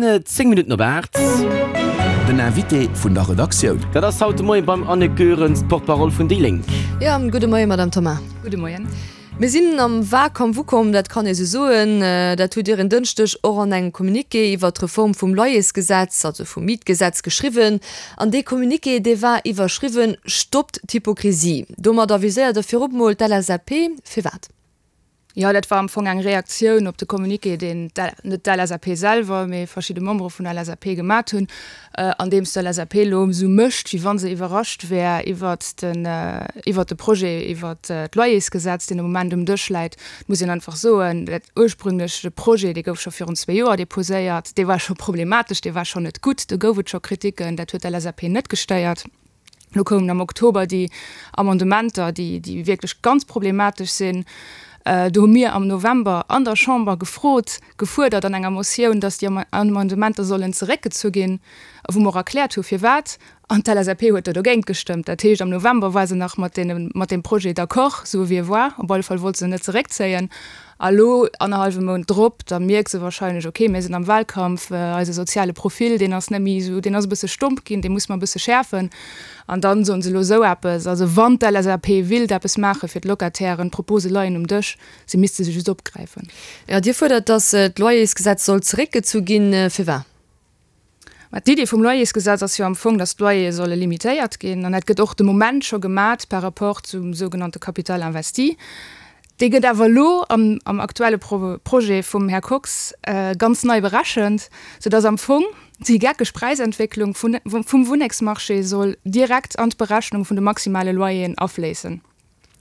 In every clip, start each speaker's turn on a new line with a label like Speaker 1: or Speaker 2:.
Speaker 1: 10 Minutten op 8.
Speaker 2: Den Invité vun der Redaktioun.
Speaker 1: Dat ass haut de Moien beim Anne Goerens, d'Porte-parole vun déi Lénk.
Speaker 3: Jo, gudde Moien, Madame Thoma.
Speaker 4: Gudde Moien.
Speaker 3: Mir sinn am Wahlkampf ukomm, dat kann ee sou soen. Dat hutt Dir en Dënschdeg och an engem Communiqué iwwert d'Reform vum Loyersgesetz, also vum Mietgesetz, geschriwwen. An dee Communiqué, dee war iwwerschriwwen Stoppt d'Hypokrisie. Domadder viséiert Der virop mol d'LSAP. Firwat?
Speaker 4: Jo, dat war am Fong eng Reaktioun op de Communiqué, deen net d'LSAP selwer, mee verschidde Membere vun der LSAP gemat hunn, andeems d'LSAP elo esou mécht, wéi wa se iwwerrascht wär iwwert den, iwwert de Projet iwwert d'Loyersgesetz, deen de Moment um Dësch läit. Et muss een einfach soen, dat ursprüngleche Projet, dee gouf scho virun zwee Joer deposéiert, dee war scho problematesch, dee war schonn net gutt, do gouf et scho Kriticken, dat huet d'LSAP net gestéiert. Lo koumen am Oktober déi Amendementer, déi, déi wierklech ganz problematesch sinn. Do hu mir am November an der Chamber gefrot, gefuerdert an enger Motioun, datt déi Amendementer sollen zeréckgezu ginn, wou mer och erkläert hu firwat. An d'LSAP huet do dogéint gestëmmt. Dat heescht, am November war se nach mat deene, mat deem Projet d'accord, sou wéi e war. Op alle Fall wollt se en net zeréckzéien. A lo, annerhallwe Mount drop, da mierkt se wahrscheinlech, ok, mir sinn am Wahlkampf, eise soziale Profil, deen ass net méi esou, deen ass e bësse stomp ginn, dee musse mer e bësse schäerfen. An dann soen se elo esou eppes. Also wann d'LSAP willt eppes maache fir d'Locatairen, d'Propose leien um Dësch, se misste se just opgräifen.
Speaker 3: Jo, Dir fuerdert, datt d'Loyersgesetz soll zeréckgezu ginn. Firwat?
Speaker 4: Mä d'Idee vum Loyersgesetz ass jo am Fong, datt d'Loyere solle limitéiert ginn. An dat gëtt och de Moment scho gemat par rapport zum sougenannte Capital investi. Dee gëtt awer elo am am aktuelle Projet vum Här Kox ganz nei berechent, soudatt am Fong déi geckeg Präisentwécklung vun vum Wunnengsmarché soll direkt an d'Berechnung vun de maximale Loyeren afléissen.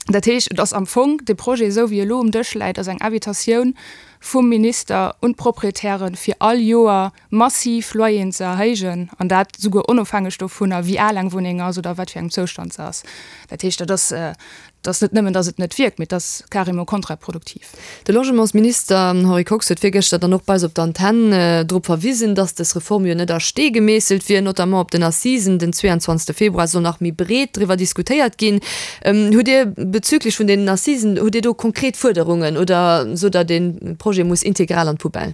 Speaker 4: Dat heescht, et ass am Fong, dee Projet, esou wéi e elo um Dësch läit, ass eng Invitatioun vum Minister un d'Proprietären, fir all Joer massiv Loyeren ze erhéijen, an dat souguer onofhängeg dovunner, wéi al eng Wunneng ass oder a wat fir engem Zoustand se ass. Dat heescht, dat ass, dat ass net nëmmen, datt et net wierkt, mee et ass carrément kontraproduktiv.
Speaker 3: De Logementsminister Henri Kox huet virgëschter dann och bei eis op der Antenn drop verwisen, datt dës Reform jo net a Stee gemeesselt wier, notamment op den Assisen den 22 Februar soll nach méi breet driwwer diskutéiert ginn. Hutt Dir bezüglech vun deenen Assisen, hutt Dir do konkret Fuerderungen oder sot Der, dee Projet muss integral an d'Poubelle?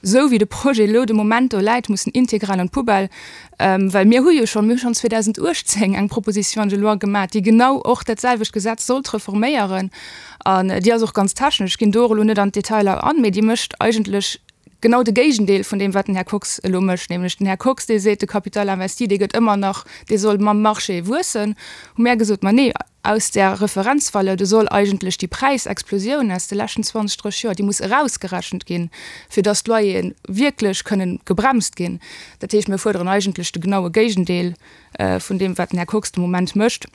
Speaker 4: Esou wéi de Projet elo de Moment do läit, muss en integral an d'Poubelle, well mir hu jo schonn, mir hu schonn 2018 eng Proposition de loi gemaach, déi genau och dat selwecht Gesetz sollt reforméieren. An déi ass och ganz technesch, ech ginn do och elo net an d'Detailer an, mee déi mécht eigentlech genau de Géigendeel vun deem, wat den Här Kox elo mécht. Nämlech den Här Kox, dee seet, de Capital investi, dee gëtt ëmmer nach, dee soll mam Marché wuessen, hu mär gesot, ma nee, Aus där Referenzvaleur, do soll eigentlech déi Präisexplosioun aus de leschten 20, 30 Joer, déi muss erausgerechent ginn, fir dass d'Loyere wierklech kënnen gebremst ginn. Dat heescht, mir fuerderen eigentlech de genaue Géigendeel vun deem, wat den Här Kox de Moment mécht.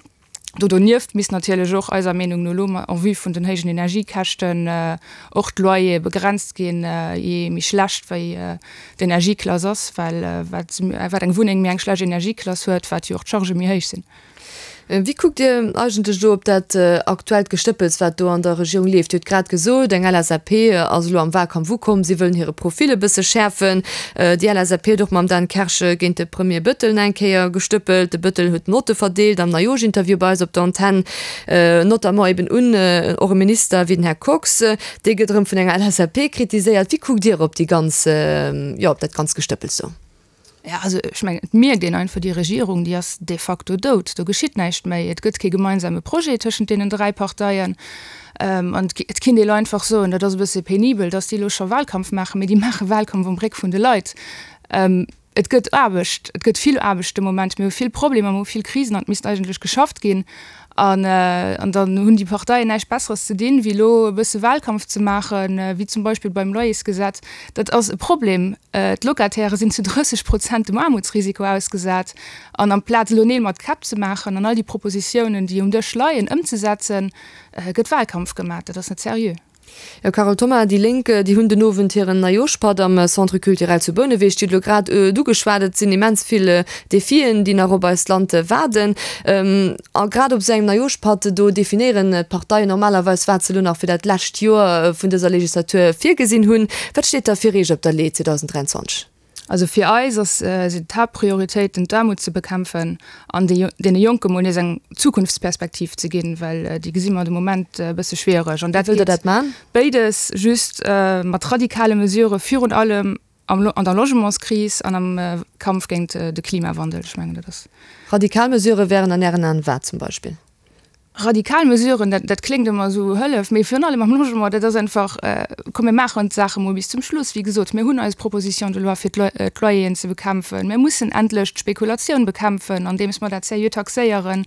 Speaker 4: Do donieft misst natierlech och eiser Meenung no elo, en vue vun den héijen Energiekäschten, och d'Loyere begrenzt ginn, jee méi schlecht wéi d'Energieklass ass, well wat eng Wunneng méi eng schlecht Energieklass huet, wat jo och d'Chargë méi héich sinn.
Speaker 3: Wéi kuckt Dir eigentlech elo op dat aktuellt Gestëppels, wat do an der Regierung leeft? Dir hutt grad gesot, eng LSAP ass elo am Wahlkampf ukomm, si wëllen hire Profil e bësse schäerfen. Déi LSAP huet och mam Dan Kersch géint de Premier Bëttel eng Kéier gestëppelt. De Bëttel huet Notte verdeelt am Neijoerschinterview bei eis op der Antenn, notamment eben un och e Minister wéi den Här Kox. Dee gëtt erëm vun enger LSAP kritiséiert. Wéi kuckt Dir op déi ganz, jo, op dat ganzt Gestëppels do?
Speaker 4: Ja, also ech mengen, et mierkt een einfach, déi Regierung, déi ass de facto dout. Do geschitt näischt méi. Et gëtt kee gemeinsame Projet tëschent deenen dräi Parteien. An et kinnt ee lo einfach soen, dat ass e bësse penibel, datt déi elo scho Wahlkampf maachen, mee déi maache Wahlkampf um Réck vun de Leit. Et gëtt Aarbecht, et gëtt vill Aarbecht de Moment. Mir hu vill Problemer, mir hu vill Krisen an et misst eigentlech geschafft ginn. An dann hunn déi Parteien näischt Besseres ze dinn, wéi elo e bësse Wahlkampf ze maachen, wéi zum Beispill beim Loyersgesetz. Dat ass e Problem. D'Locataire sinn zu 30 Prozent dem Aarmutsrisiko ausgesat. An amplaz elo Neel mat Käpp ze maachen an all déi Propositiounen, déi um Dësch leien, ëmzesetzen, gëtt Wahlkampf gemaach. Dat ass net seriö.
Speaker 3: Jo, Carole Thoma, déi Lénk, déi hunn den Owend hiren Neijooschpatt am Centre Culturel zu Bouneweg. Dir hutt elo grad et ugeschwat, et sinn immens vill Defien, déi nach op eist Land waarden. A grad op esou engem Neijooschpatt, do definéieren d'Parteien normalerweis, wat se elo nach fir dat lescht Joer vun dëser Legislatur virgesinn hunn. Wat steet da fir Iech op der Lee 2023?
Speaker 4: Also fir eis ass, sinn d'Haaptprioritéiten d'Aarmut ze bekämpfen an deene Jonke mol nees eng Zukunftsperspektiv ze ginn, well déi gesi mer de Moment e bësse schwiereg. An dat
Speaker 3: Wéi wëllt Der dat man?
Speaker 4: Béides, just mat radikale Mesurë virun allem. am an der Logementskris an am Kampf géint de Klimawandel. Ech mengen, dat ass.
Speaker 3: Radikal Mesurë wären an Ären Aen wat zum Beispill?
Speaker 4: Radikal Mesuren, dat, dat kléngt ëmmer esou hëllef, mee virun allem am Logement, dat ass einfach, komm mir maachen d'Saache mol bis zum Schluss. Wéi gesot, mir hunn eis Proposition de loi fir d'Loyeren ze bekämpfen. Mir mussen endlech d'Spekulatioun bekämpfen, andeems mer dat seriö taxéieren.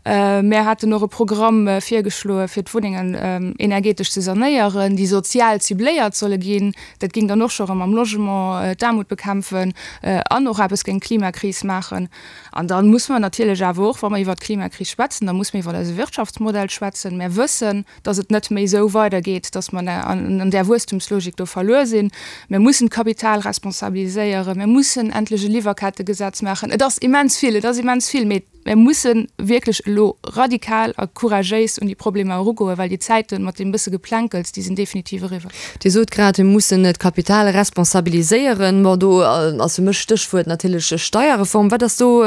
Speaker 4: Mir haten och e Programm virgeschloe fir d'Wunnengen energetesch ze sanéieren, déi sozial cibléiert solle ginn. Dat géing dann och scho erëm am Logement d'Aarmut bekämpfen an och eppes géint d'Klimakris maachen. An da muss mer natierlech awer och, wa mer iwwert d'Klimakris schwätzen, da muss mer iwwer eise Wirtschaftsmodell schwätzen. Mer wëssen, dass et net méi esou weidergeet, dass mer an där Wuesstumslogik do verluer sinn. Mer mussen d'Kapital responsabiliséieren. Mer mussen endlech e Liwwerkettegesetz maachen. Et ass immens vill, et ass immens vill, mee Mir musse wierklech elo radikal a couragéis un déi Problemer erugoen, well déi Zäite mat deem bësse Geplänkels, déi sinn definitiv eriwwer.
Speaker 3: Dir sot grad, mir mussen d'Kapital responsabiliséieren. Bon, do ass fir mech Stéchwuert natierlech Steierreform. Wat ass do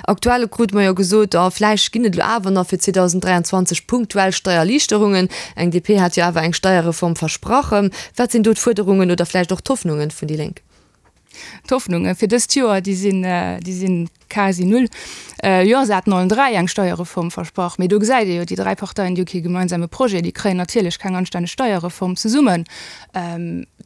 Speaker 3: aktuell? Krute mer jo gesot, oh, vläicht ginn et elo awer nach fir 2023 punktuell Steierliichterungen. Eng DP hat jo awer eng Steierreform versprach. Wat sinn do d'Fuerderungen oder vläicht och d'Hoffnungen vun déi Lénk?
Speaker 4: D'Hoffnunge fir dëst Joer, déi sinn, déi sinn quasi null. Jo, se haten allen 3 eng Steierreform versprach, mee do gesäit ee jo, déi 3 Parteien, déi hu kee gemeinsame Projet, déi kréien natierlech keng anstänneg Steierreform zesummen.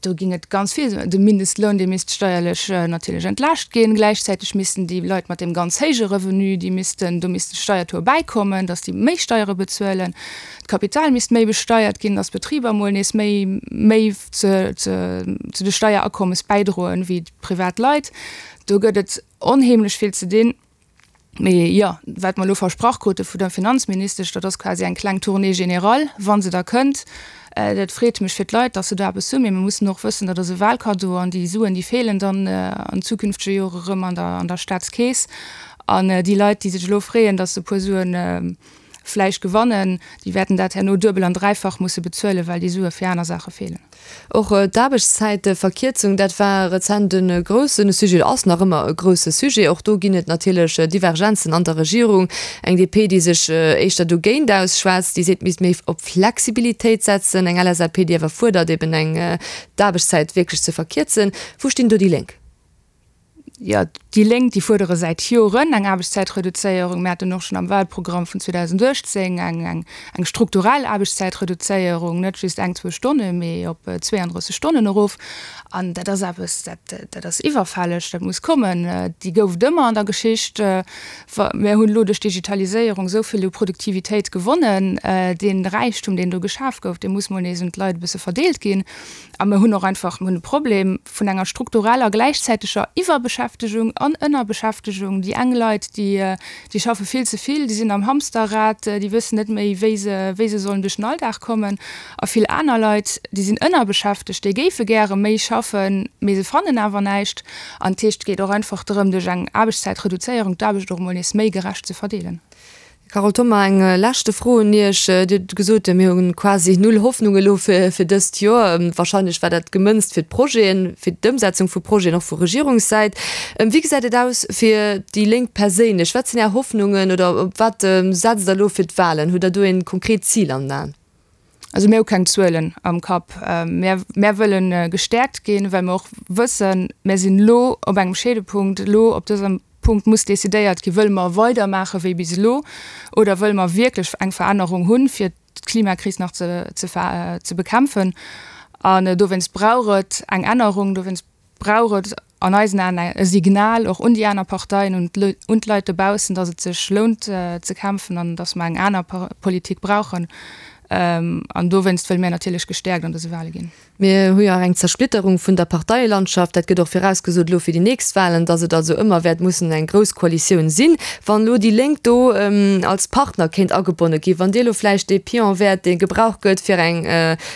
Speaker 4: Do géing et ganz vill, de Mindestloun, dee misst steierlech natierlech entlaascht ginn, gläichzäiteg missten déi Leit mat deem ganz héije Revenu, déi missten, do misst de Steiertaux bäikommen, datt déi méi Steiere bezuelen. D'Kapital misst méi besteiert ginn, datt d'Betriber emol nees méi, méi ze, ze, zu de Steierakommes bäidroen wéi privat Leit. Do gëtt et onheemlech vill ze dinn. Mee jo, wat mer elo versprach krute vun der Finanzministesch, dat ass quasi eng kleng Tournée générale, wa se da kënnt. Dat freet mech fir d'Leit, datt se do eppes hunn. Mee mer mussen och wëssen, dat ass e Wahlcadeau an déi Suen, déi feelen dann an zukünftege Jore erëm an der, an der Staatskeess. An déi Leit, déi sech elo freeën, datt se e puer Suen vläicht gewannen, déi wäerten dat herno duebel an dräifach musse bezuelen, well déi Sue fir aner Saache feelen.
Speaker 3: Och d'Aarbechtszäitverkierzung, dat war rezent e grousse Sujet, oder ass nach ëmmer e grousse Sujet. Och do ginn et natierlech Divergenzen an der Regierung. Eng DP, déi sech éischter dogéint ausschwätzt, déi seet, et misst méi op Flexibilitéit setzen. Eng LSAP, déi awer fuerdert, eben eng d'Aarbechtszäit wierklech ze verkierzen. Wou stinn do déi Lénk?
Speaker 4: Jo, déi Lénk, déi fuerdere säit Joren eng Aarbechtszäitreduzéierung. Mir haten och schonn am Wahlprogramm vun 2018 eng, eng strukturell Aarbechtszäitreduzéierung, net just eng, zwou Stonne, mee op 32 Stonnen erof. An dat ass eppes, dat, dat ass iwwerfälleg, dat muss kommen. Déi gouf et ëmmer an der Geschicht. Mir hunn elo duerch d'Digitaliséierung esou vill u Produktivitéit gewonnen. Dee Räichtum, deen do geschaf gouf, dee muss mol nees un d'Leit e bësse verdeelt ginn. A mir hunn och einfach, mir hunn e Problem vun enger struktureller gläichzäiteger Iwwerbeschäftegung an Ënnerbeschäftegung. Déi eng Leit, déi, déi schaffe vill ze vill, déi sinn am Hamsterrad, déi wëssen net méi, wéi se, wéi se sollen duerch den Alldag kommen. A vill aner Leit, déi sinn ënnerbeschäftegt, déi géife gäre méi schaffen, mee se fannen awer näischt. An dat heescht, et geet och einfach drëm, duerch eng Aarbechtszäitreduzéierung d'Aarbecht och emol nees méi gerecht ze verdeelen.
Speaker 3: Carole Thoma, eng leschte Fro un Iech. Dir hutt gesot, mir hu quasi null Hoffnung elo fir dëst Joer. Wahrscheinlech war dat gemënzt fir d'Projeten, fir d'Ëmsetzung vu Projeten, och vu Regierungssäit. Wéi gesäit et aus fir déi Lénk perséinlech? Wat sinn Är Hoffnungen oder op wat setzt Der elo fir d'Wahlen? Hutt Der do ee konkret Zil an den Aen?
Speaker 4: Also mir hu keng Zuelen am Kapp. Mir, mir wëlle gestäerkt ginn, well mer och wëssen, mir sinn elo op engem Scheedepunkt. Elo op dësem Punkt muss decidéiert ginn, Wëlle mer weidermaache wéi bis elo oder wëlle mer wierklech eng Verännerung hunn, fir d'Klimakris nach ze, ze, ze bekämpfen? An dowéinst brauch et eng Ännerung, dowéinst brauch et an eisen Aen e Signal och un déi aner Parteien, un d'Leit dobaussen, datt et sech lount ze kämpfen an datt mer eng aner Politik brauchen. An dowéinst wëlle mir natierlech gestäerkt an dëse Wale ginn.
Speaker 3: Mir hu jo och eng Zersplitterung vun der Parteielandschaft. Dat gëtt och virausgesot elo fir déi nächst Walen, datt et also ëmmer wäert mussen eng grouss Koalitioun sinn. Wann elo déi Lénk do als Partner kéint agebonne ginn, wann Dir elo vläicht dee Pion wäert, dee gebraucht gëtt, fir eng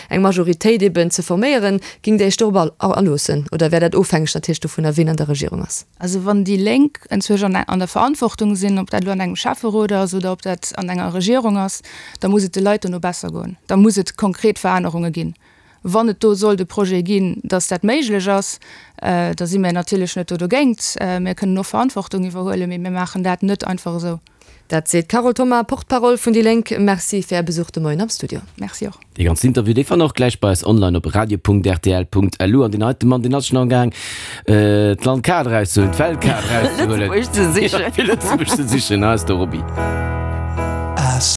Speaker 3: Majoritéit eben ze forméieren, Géingt Dir Iech dorop aloossen oder wär dat ofhängeg natierlech dovunner, wien an der Regierung ass?
Speaker 4: Also wann déi Lénk enzwousch an der Verantwortung sinn, ob dat elo an engem Schäfferot ass oder ob dat an enger Regierung ass, da muss et de Leit dono besser goen. Da muss et konkret Verännerunge ginn. Wann et do sollt e Projet ginn, datt dat méiglech ass, da si mir natierlech net do dogéint. Mir kënnen och Verantwortung iwwerhuelen, mee mir maachen dat net einfach esou.
Speaker 3: Dat seet d'Carole Thoma, Porte-parole vun déi Lénk. Merci fir Är Besuch de Moien am Studio.
Speaker 4: Merci och.
Speaker 1: Dee ganzen Interview, dee fannt der och gläich bei eis online op radio.rtl.lu. An deen heite Mann, deen ass schonn am Gaang, d'Landkaart erauszehuelen, d'Weltkaart erauszehuelen.
Speaker 3: Lëtzebuerg ze sichen.
Speaker 1: Fir Lëtzebuerg ze sichen. Hei ass de Roby.